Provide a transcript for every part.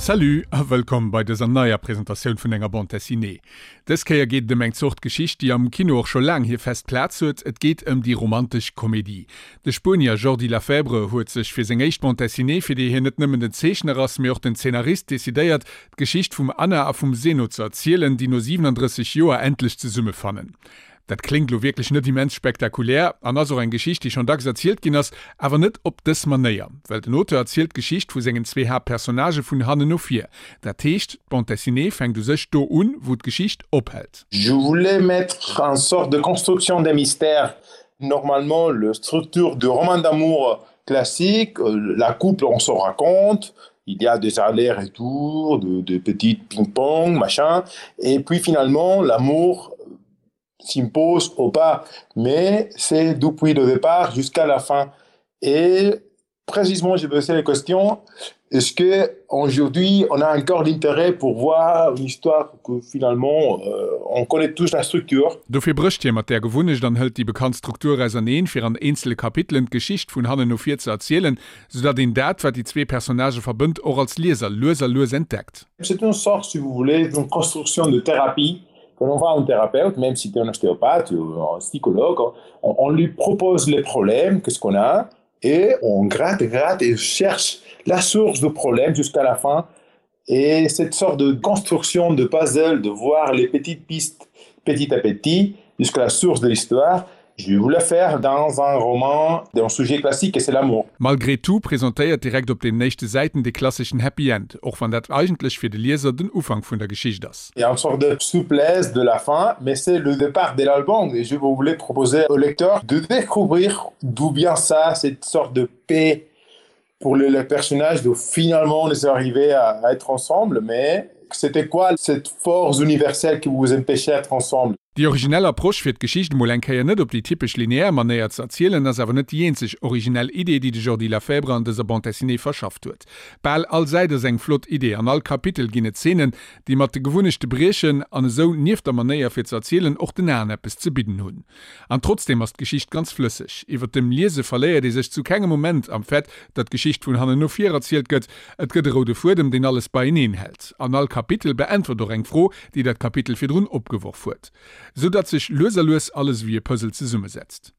Salut a wëllkomm bei dëser neier Presentatioun vun enger Bande Dessinée. Dës Kéier geet et ëm eng Zort Geschicht, déi am Kino och scho laang hir fest Plaz huet, et geet ëm déi romantesch Komedie. De Spuenier Jordi Lafebre huet sech fir seng éischt Bande Dessinée, fir déi hien net nëmmen den Zeechner ass, mee och den Zeenarist, decidéiert, d'Geschicht vum Anna a vum Zeno ze erzielen, déi no 37 Joer endlech zesummefannen. Dat kléngt lo wierklech net immens spektakulär an ass och eng Geschicht, déi schonn dacks erzielt ginn ass, awer net op dës Manéier. Well den Auteur erzielt d'Geschicht vu sengen zwee Haaptpersonnagë vun hannen no vir. Dat heescht, d'Bande dessinée fänkt u sech do un, wou d'Geschicht ophält. Je voulais mettre un sorte de construction des mystères. Normalement, le structure de roman d'amour classique, la couple on se raconte, il y a des allers-retours, de, de petits ping-pong, machin, et puis finalement l'amour s'impose ou pas, mais c'est depuis le départ jusqu'à la fin. Et précisément, j'ai posé la question, est-ce que aujourd'hui on a encore l'intérêt pour voir une histoire que finalement euh, on connaît tous la structure? Dofir brécht hie mat där Gewunnecht an hëlt déi bekannt Struktur auserneen, fir an eenzele Kapitelen d'Geschicht vun hannen no vir ze erzielen, soudatt een dat, wat déi zwee Personnagë verbënnt, och als Lieser lues a lues entdeckt. C'est une sorte, si vous voulez, d'une construction de thérapie Quand on voit un thérapeute, même si tu es un ostéopathe ou un psychologue, on, on lui propose les problèmes, qu'est-ce qu'on a, et on gratte, gratte et cherche la source du problème jusqu'à la fin. Et cette sorte de construction de puzzle, de voir les petites pistes petit à petit jusqu'à la source de l'histoire, je voulais faire dans un roman d'un sujet classique et c'est l'amour. Malgré tout presentéiert direkt op den éischte Säiten de klasseschen Happy End, och wann dat eigentlech fir de Lieser den Ufank vun der Geschicht ass. Il y a une sorte de souplesse de la fin, mais c'est le départ de l'album et je voulais proposer au lecteur de découvrir d'où vient ça, cette sorte de paix pour le, le personnage de finalement on est arrivé à, à être ensemble, mais c'était quoi cette force universelle qui vous empêchait d'être ensemble? Déi originell Approche fir d'Geschicht emol eng Kéier net op déi typesch lineär Manéier ze erzielen, ass awer net déi eenzeg originell Idee, déi de Jordi Lafebre an dëser Bande dessinée verschafft huet. Bal all Säit ass eng flott Idee, an all Kapitel ginn et Zeenen, déi mat de Gewunnechte briechen an esou nieft der Manéier fir ze erzielen och den Aen eppes ze bidden hunn. An trotzdeem ass d'Geschicht ganz flësseg. Iwwer dem Liese verléiert ee sech zu kengem Moment am Fait, datt d'Geschicht vun hannen no vir erzielt gëtt. Et gëtt e roude Fuedem, deen alles beieneen hält. An all Kapitel beäntwert och eng Fro, déi dat Kapitel virdrun opgeworf huet, sou datt sech lues a lues alles ewéi e Puzzle zesummesetzt.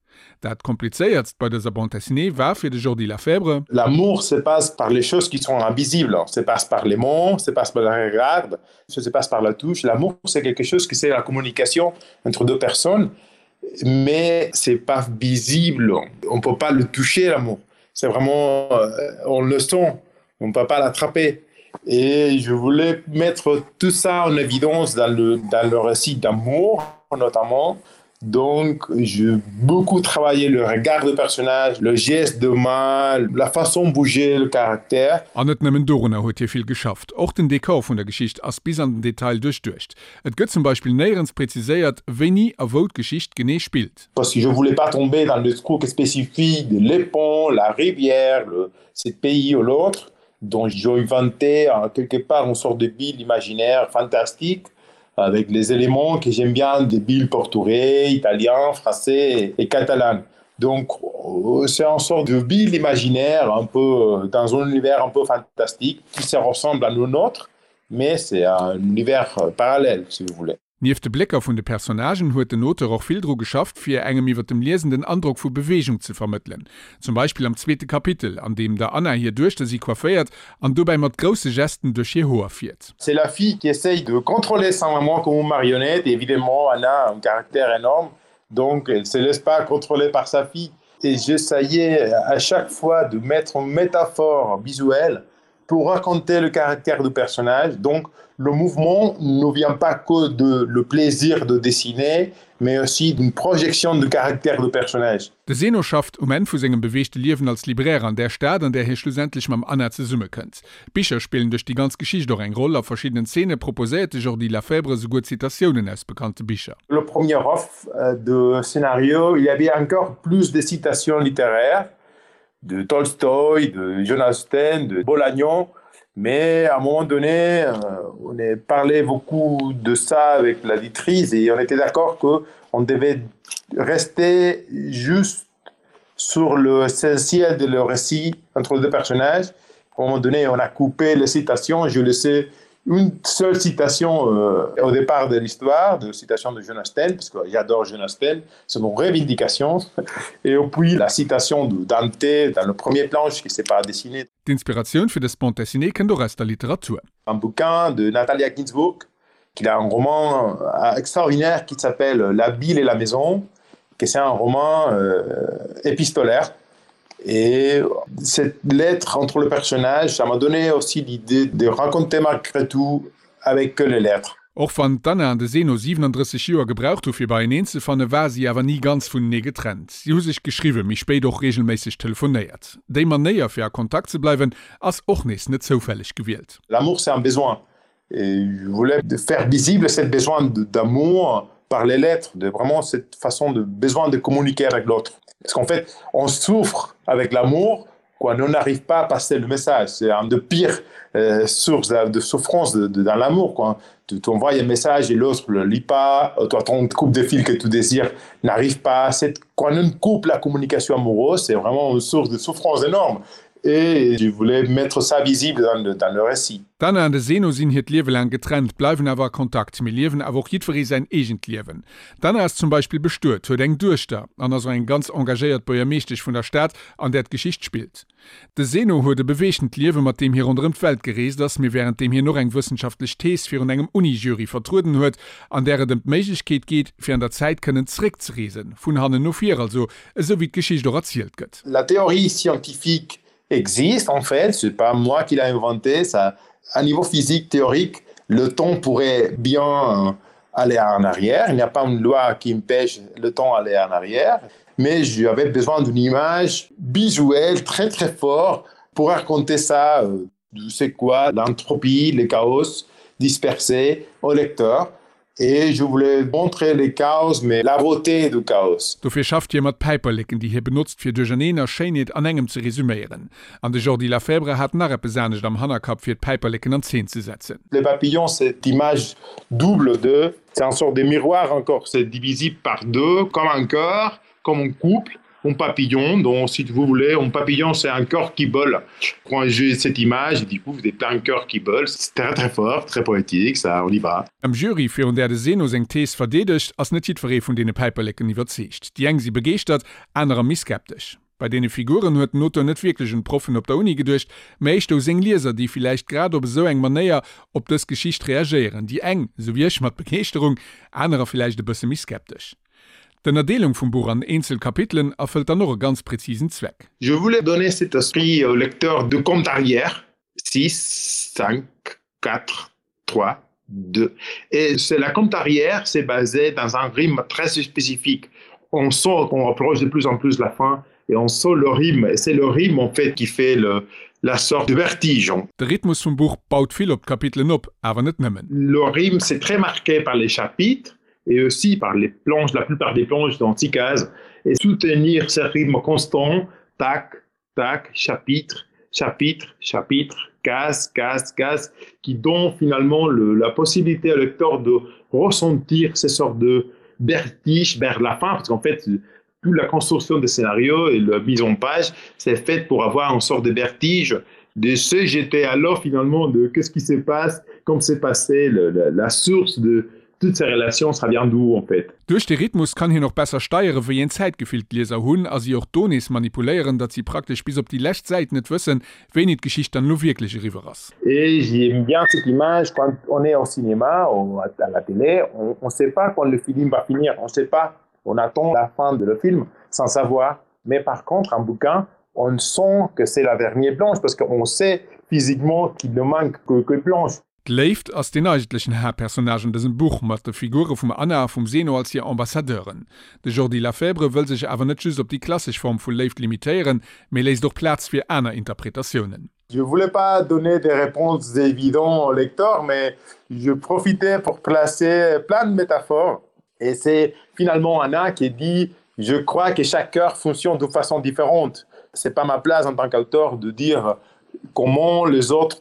Dat komplizéiertst bei dëser Bande dessinée war fir de Jordi Lafebre, L'amour se passe par les choses qui sont invisibles, se passe par les mots, se passe par le regard, se passe par la touche. L'amour c'est quelque chose qui c'est la communication entre deux personnes, mais c'est pas visible, on peut pas le toucher l'amour. C'est vraiment euh, on le sent, on peut pas l'attraper. Et je voulais mettre tout ça en évidence dans le, dans le récit d'amour notamment. Donc j'ai beaucoup travaillé le regard de personnage, le geste de main, la façon bouger le caractère. An net nëmmen dorunner huet hie vill geschafft, och den Dekor vun der Geschicht ass bis an den Detail duerchduecht. Et gëtt zum Beispill néierens präziséiert, wéini a wou d'Geschicht genee spillt. Parce que je voulais pas tomber dans le truc spécifique de les ponts, la rivière, le ce pays ou l'autre dont j'ai inventé quelque part une sorte de ville imaginaire fantastique avec les éléments que j'aime bien des villes portugais, italiens, français et catalan. Donc euh, c'est une sorte de ville imaginaire un peu euh, dans un univers un peu fantastique qui se ressemble à nos nôtres, mais c'est un univers euh, parallèle si vous voulez. Nieft de Blécker vun de Personnagen huet den Auteur och vill dru geschafft, fir engem iwwer dem Liesen den Androck vu Beweegung ze vermëttelen. Zum Beispill am zweete Kapitel, an deem der Anna hir Duechter si coifféiert an dobäi mat grousse Gesten duerch hir Hoer fiert. C'est la fille qui essaye de contrôler sa maman comme une marionnette et évidemment Anna a un caractère énorme donc elle se laisse pas contrôler par sa fille et j'essayais à chaque fois de mettre une métaphore visuelle pour raconter le caractère du personnage. Donc le mouvement ne vient pas que de le plaisir de dessiner, mais aussi d'une projection du caractère du personnage. De Zeno schafft um Enn vu sengem beweegte Liewen als Libraire an där Stad, an där hie schlussendlech mam Anna zesummekënnt. D'Bicher spillen duerch déi ganz Geschicht och eng Roll. A verschiddenen Zeene proposéiert de Jordi Lafebre souguer Zitatiounen aus bekannte Bicher. Le premier off euh, de scénario, il y avait encore plus de citations littéraires de Tolstoï, de Jonas Austen, de Bolagnon. Mais à un moment donné, euh, on a parlé beaucoup de ça avec l'auditrice et on était d'accord qu'on devait rester juste sur l'essentiel de le récit entre les deux personnages. À un moment donné, on a coupé les citations, je laissais une seule citation euh, au départ de l'histoire, de citation de Jonas Sten, parce que j'adore Jonas Sten, c'est mon revindication, et puis la citation de Dante dans le premier planche qui s'est pas dessiné. D'Inspiratioun fir dës Bande dessinée kënnt och aus der Literatur. Un bouquin de Natalia Ginzburg, qui a un roman euh, extraordinaire qui s'appelle La ville et la maison, que c'est un roman euh, épistolaire. Et cette lettre entre le personnage, ça m'a donné aussi l'idée de raconter malgré tout avec que les lettres. Och wann d'Anna an de Zeno 37 Joer gebraucht hu fir beieneen ze fannen, ware si awer ni ganz vunenee getrennt. Si hu sech geschriwwen, méi spéit och reegelméisseg telefonéiert. Déi Manéier fir a Kontakt ze bleiwen ass och nees net zoufälleg gewielt. L'amour c'est un besoin et je voulais faire visible cette besoin d'amour par les lettres, de vraiment cette façon de besoin de communiquer avec l'autre. Parce qu'en fait, on souffre avec l'amour quand on n'arrive pas à passer le message. C'est un de pires euh, sources de souffrance de, de, dans l'amour. Quoi. Tu envoies un message et l'autre ne le lit pas, toi ton coupe de fil que tu désires n'arrive pas. Quand on coupe la communication amoureuse, c'est vraiment une source de souffrance énorme. Et je voulais mettre ça visible dans le, dans le récit. D'Anna an de Zeno sinn hiert Liewe laang getrennt, bleiwen awer a Kontakt, mee liewen awer och jiddweree säin eegent Liewen. D'Anna ass zum Beispill bestuet, huet eng Duechter an ass och eng ganz engagéiert Buergermeeschtesch vun der Stad, an där d'Geschicht spillt. De Zeno huet e beweegtent Liewe, mat deem hie ronderëm d'Welt gereest ass, mee wärend deem hien och eng wëssenschaftlech Thees virun engem Uni-Jury vertrueden huet, an där et ëm d'Méiglechkeet geet, fir an der Zäit kënnen zeréckzereesen, vun hannen no vir also, esou wéi d'Geschicht och erzielt gëtt. La théorie scientifique existe en fait, c'est pas moi qui l'a inventé, ça à niveau physique théorique, le temps pourrait bien aller en arrière, il n'y a pas une loi qui empêche le temps aller en arrière, mais j'avais besoin d'une image visuelle très très fort pour raconter ça euh, c'est quoi l'entropie, le chaos dispersé au lecteur. Et je voulais montrer le chaos, mais la beauté du chaos. Dofir schafft hie mat Päiperleken, déi hie benotzt, fir Duercherneen a Schéinheet an engem ze resuméieren. An de Jordi Lafebre hat nach eppes anescht am Hannerkapp, fir d'Päiperleken an Zeen ze setzen. Le papillon, cette image double de, c'est un sorte de miroir encore, c'est divisible par deux, comme un cœur, comme un couple. Un papillon, dont si vous voulez, un papillon c'est un cœur qui vole. Quand j'ai cette image, du coup, vous avez plein de cœurs qui volent, c'est très très fort, très poétique, ça, on y va. Am Jury, virun där de Zeno seng Thees verdeedegt, ass net jiddweree vun deene Päiperleken iwwerzeegt. Déi eng si begeeschtert, anerer méi skeptesch. Bei deene Figuren huet den Auteur net wierklech un d'Proffen op der Uni geduecht, mä éischter u seng Lieser, déi villäicht grad op esou eng Manéier op dës Geschicht reagéieren. Déi eng, esou wéi ech, mat Begeeschterung, anerer villäicht e bësse méi skeptesch. D'Ënnerdeelung vum Buch an eenzel Kapitelen erfëllt dann och e ganz präzisen Zweck. Je voulais donner cet esprit au lecteur de compte arrière, 6, 5, 4, 3, 2. Et c'est la compte arrière, c'est basé dans un rythme très spécifique. On sent qu'on approche de plus en plus la fin et on sent le rythme et c'est le rythme en fait qui fait le, la sorte de vertige. De Rhythmus vum Buch baut vill op d'Kapitelen op, awer net nëmmen. Le rythme c'est très marqué par les chapitres et aussi par les planches, la plupart des planches dans six cases et soutenir ce rythme constant, tac, tac, chapitre, chapitre, chapitre, case, case, case, qui donne finalement le, la possibilité au lecteur de ressentir ces sortes de vertige vers la fin parce qu'en fait toute la construction des scénarios et la mise en page c'est fait pour avoir une sorte de vertige de ce j'étais alors finalement de qu'est-ce qui se passe comme s'est passé le, la, la source de toutes ces relations ça vient d'où en fait. Duerch de Rhythmus kann hien och besser steiere wéi een Zäitgefill d'Lieser hunn a si och do nees manipuléieren, datt si praktesch bis op déi lescht Säit net wëssen, wéini d'Geschicht dann elo wierklech eriwwer ass. Et j'aime bien cette image quand on est au cinéma ou à la télé, on ne sait pas quand le film va finir, on sait pas, on attend la fin de le film sans savoir. Mais par contre, un bouquin, on sent que c'est la dernière planche parce qu'on sait physiquement qu'il ne manque que, que planche. D'Léift ass deen eigentlechen Haaptpersonnage an dësem Buch, mat de Figure vum Anna a vum Zeno als hir Ambassadeuren. De Jordi Lafebre wëll sech awer net just op déi klassesch Form vu Léift limitéieren, mee léisst och Plaz fir aner Interpretatiounen. Je voulais pas donner des réponses évidentes au lecteur, mais je profitais pour placer plein de métaphores. Et c'est finalement Anna qui dit je crois que chaque cœur fonctionne de façon différente. C'est pas ma place en tant qu'auteur de dire comment les autres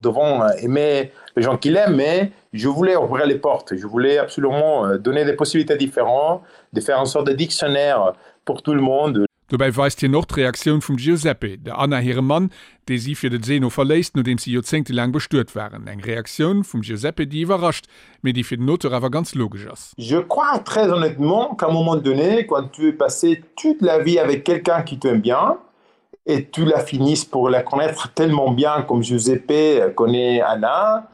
devront aimer les gens qu'il aime, mais je voulais ouvrir les portes. Je voulais absolument euh, donner des possibilités différentes, de faire en sorte de dictionnaire pour tout le monde. Dobäi weist hien och d'Reaktioun vum Giuseppe, der Anna hirem Mann, dee si fir de Zeno verléisst, nodeems si joerzéngtelaang bestuet waren. Eng Reaktioun vum Giuseppe, déi iwwerrascht, mee déi fir den Auteur awer ganz logesch ass. Je crois très honnêtement qu'à un moment donné, quand tu es passé toute la vie avec quelqu'un qui t'aime bien et tu la finisses pour la connaître tellement bien comme Giuseppe connaît Anna,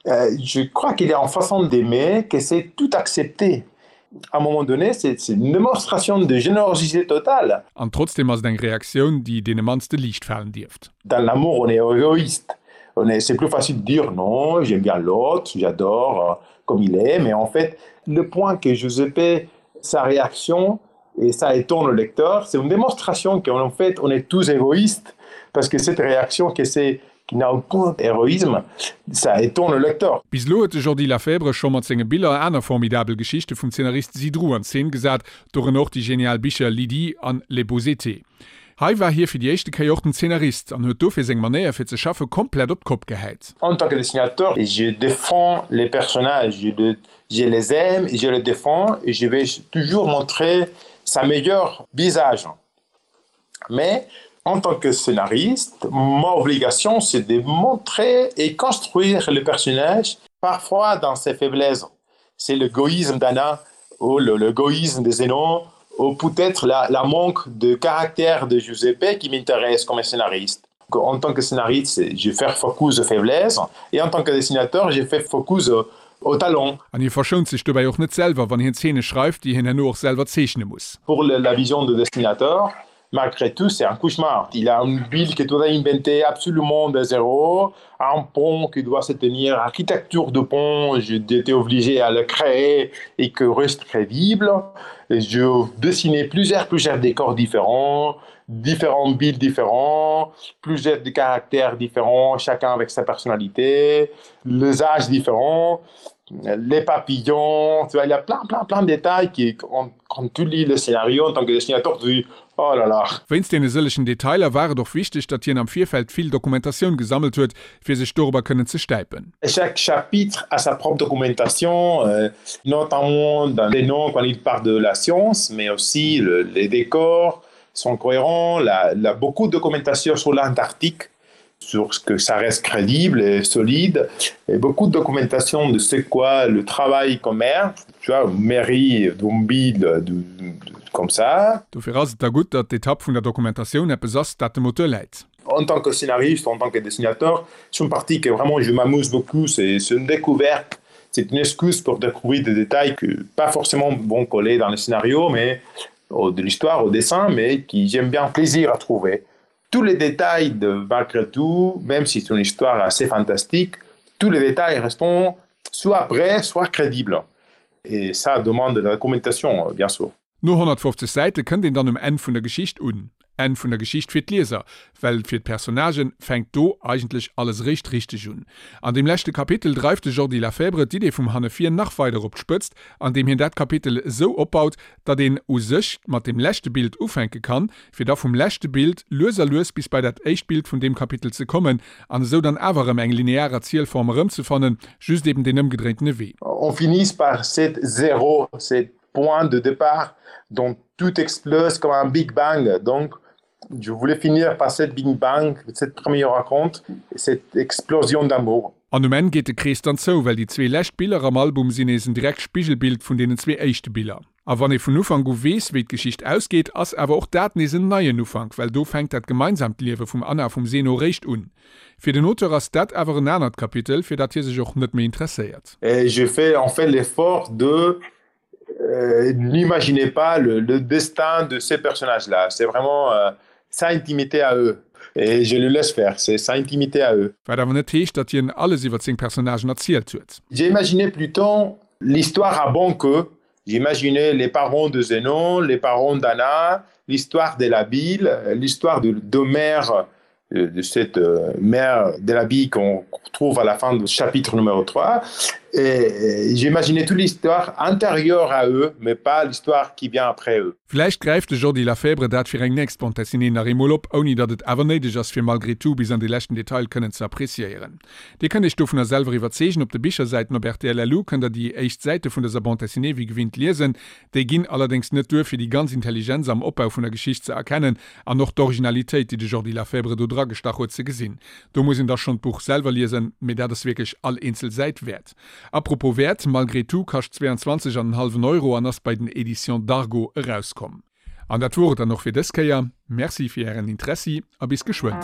euh, je crois qu'il est en façon d'aimer que c'est tout accepter. À un moment donné, c'est une démonstration de générosité totale. An trotzdem ass et eng Reaktioun, déi deene mannste liicht falen dierft. Dans l'amour, on est égoïste. On est, c'est plus facile de dire non, j'aime bien l'autre, j'adore euh, comme il est, mais en fait, le point que Giuseppe, sa réaction, et ça étonne le lecteur, c'est une démonstration qu'en fait, on est tous égoïstes, parce que cette réaction que c'est qui n'a aucun héroïsme, ça étonne le lecteur. Bis elo huet de Jordi Lafebre scho mat senge Biller aner formidabel Geschichte vum Zeenarist Zidrou an Zeen gesat, dorënner och déi genial Bicher Lydie an Les beaux étés. Hei war hie fir déi éischte Kéier och den Zeenarist an huet dofir seng Manéier fir ze schaffe komplett op d'Kopp gehäit. En tant que dessinateur, je défends les personnages, je, je les aime, je les défends et je vais toujours montrer sa meilleure visage. Mais en tant que scénariste, ma obligation c'est de montrer et construire le personnage parfois dans ses faiblesses. C'est l'égoïsme d'Anna ou l'égoïsme de Zénon ou peut-être la, la manque de caractère de Giuseppe qui m'intéresse comme scénariste. En tant que scénariste, je fais focus aux faiblesses et en tant que dessinateur, je fais focus au talent. An hie verschount sech dobäi och net selwer, wann hien Zeene schreift, déi hien herno och selwer zeechne muss. Pour la vision de dessinateur, malgré tout, c'est un cauchemar. Il a une ville que doit inventer absolument de zéro, un pont qui doit se tenir, architecture de pont, j'étais obligé à le créer et que reste crédible. Et je dessinais plusieurs, plusieurs décors différents, différents villes différents, plusieurs de caractères différents, chacun avec sa personnalité, les âges différents, les papillons, tu vois, il y a plein, plein, plein de détails qui, quand, quand tu lis le scénario en tant que dessinateur, tu dis oh là là. Wéinst deene sëllegen Detailer war et och wichteg, datt hien am Virfeld vill Dokumentatioun gesammelt huet, fir sech dorobber kënnen ze stäipen. Chaque chapitre a sa propre documentation, notamment dans les noms quand il parle de la science, mais aussi le, les décors sont cohérents, la, la, beaucoup de documentation sur l'Antarctique, sur ce que ça reste crédible et solide, et beaucoup de documentation de ce quoi le travail comme maire, tu vois, mairie, Dombi, de, de, comme ça. Dofir ass et da gutt, datt d'Etapp vun der Dokumentatioun eppes ass, dat dem Auteur läit. En tant que scénariste, en tant que dessinateur, c'est une partie que vraiment je m'amuse beaucoup, c'est une découverte, c'est une excuse pour découvrir des détails que pas forcément vont coller dans le scénario, mais de l'histoire, au dessin, mais qui j'aime bien plaisir à trouver. Tous les détails de malgré tout, même si c'est une histoire assez fantastique, tous les détails restent soit vrais, soit crédibles. Et ça demande de la documentation, bien sûr. No 150 Säite kënnt een dann um Enn vun der Geschicht un. Enn vun der Geschicht fir d'Lieser, well fir d'Personnagë fänkt do eigentlech alles eréischt richteg un. An deem leschte Kapitel dreift de Jordi Lafebre d'Idee vum Hanne-Vir nach weider op d'Spëtzt, andeem hien dat Kapitel esou opbaut, datt een u sech mat deem leschte Bild ufänke kann, fir da vum leschte Bild lues a lues bis bei dat éischt Bild vun deem Kapitel ze kommen an esou dann awer erëm eng linear Erzielform erëmzefannen, just eben deen ëmgedréintene Wee. On finit par cet zéro, cet point de départ dont tout explose comme un big bang. Donc, je voulais finir par cette big bang, cette première raconte, cette explosion d'amour. An um Enn geet de Krees dann zou, well déi zwee lescht Biller am Album sinn nees en direkt Spigelbild vun deenen zwee éischte Biller. A wann ee vun Ufank u weess, wéi d'Geschicht ausgeet, ass awer och dat nees en neien Ufank, well do fänkt dat gemeinsamt Liewe vum Anna a vum Zeno réischt un. Fir den Auteur ass dat awer en anert Kapitel, fir dat hie sech och net méi interesséiert. Et je fais en fait l'effort de euh, n'imaginez pas le, le destin de ces personnages-là. C'est vraiment euh, sa intimité à eux. Et je le laisse faire, c'est sa intimité à eux. Wat awer net heescht, datt hien alles iwwer seng Personnagen erzielt huet. J'ai imaginé plutôt l'histoire avant que j'imaginais les parents de Zénon, les parents d'Anna, l'histoire de la ville, l'histoire de d'Homère, de cette euh, mère de la vie qu'on trouve à la fin du chapitre numéro 3. Et j'imaginais toute l'histoire antérieure à eux, mais pas l'histoire qui vient après eux. Vläicht gräift de Jordi Lafèbre dat fir eng nächst Bande dessinée nach eemol op, ouni datt et awer néideg ass fir Malgré tout bis an de leschten Detail kënnen ze appréciéieren. Dir kënnt iech dovunner selwer iwwerzeegen, op de Bichersäiten op rtl.lu kënnt der déi éischt Säite vun dëser Bande dessinée wéi gewinnt liesen. Déi ginn allerdéngs net duer fir déi ganz Intelligenz am Opbau vun der Geschicht ze erkennen an och d'Originalitéit déi de Jordi Lafèbre do dragestach huet ze gesinn. Do muss een da schonn d'Buch selwer liesen, mee dat ass wierklech all eenzel Säit wäert. A propos Wäert, Malgré tout kascht 22 an en hallwen Euro an ass bei den Editions Dargo erauskomm. An dat wor et dann och fir dës Kéier. Merci fir ären Interessi a bis geschwënn.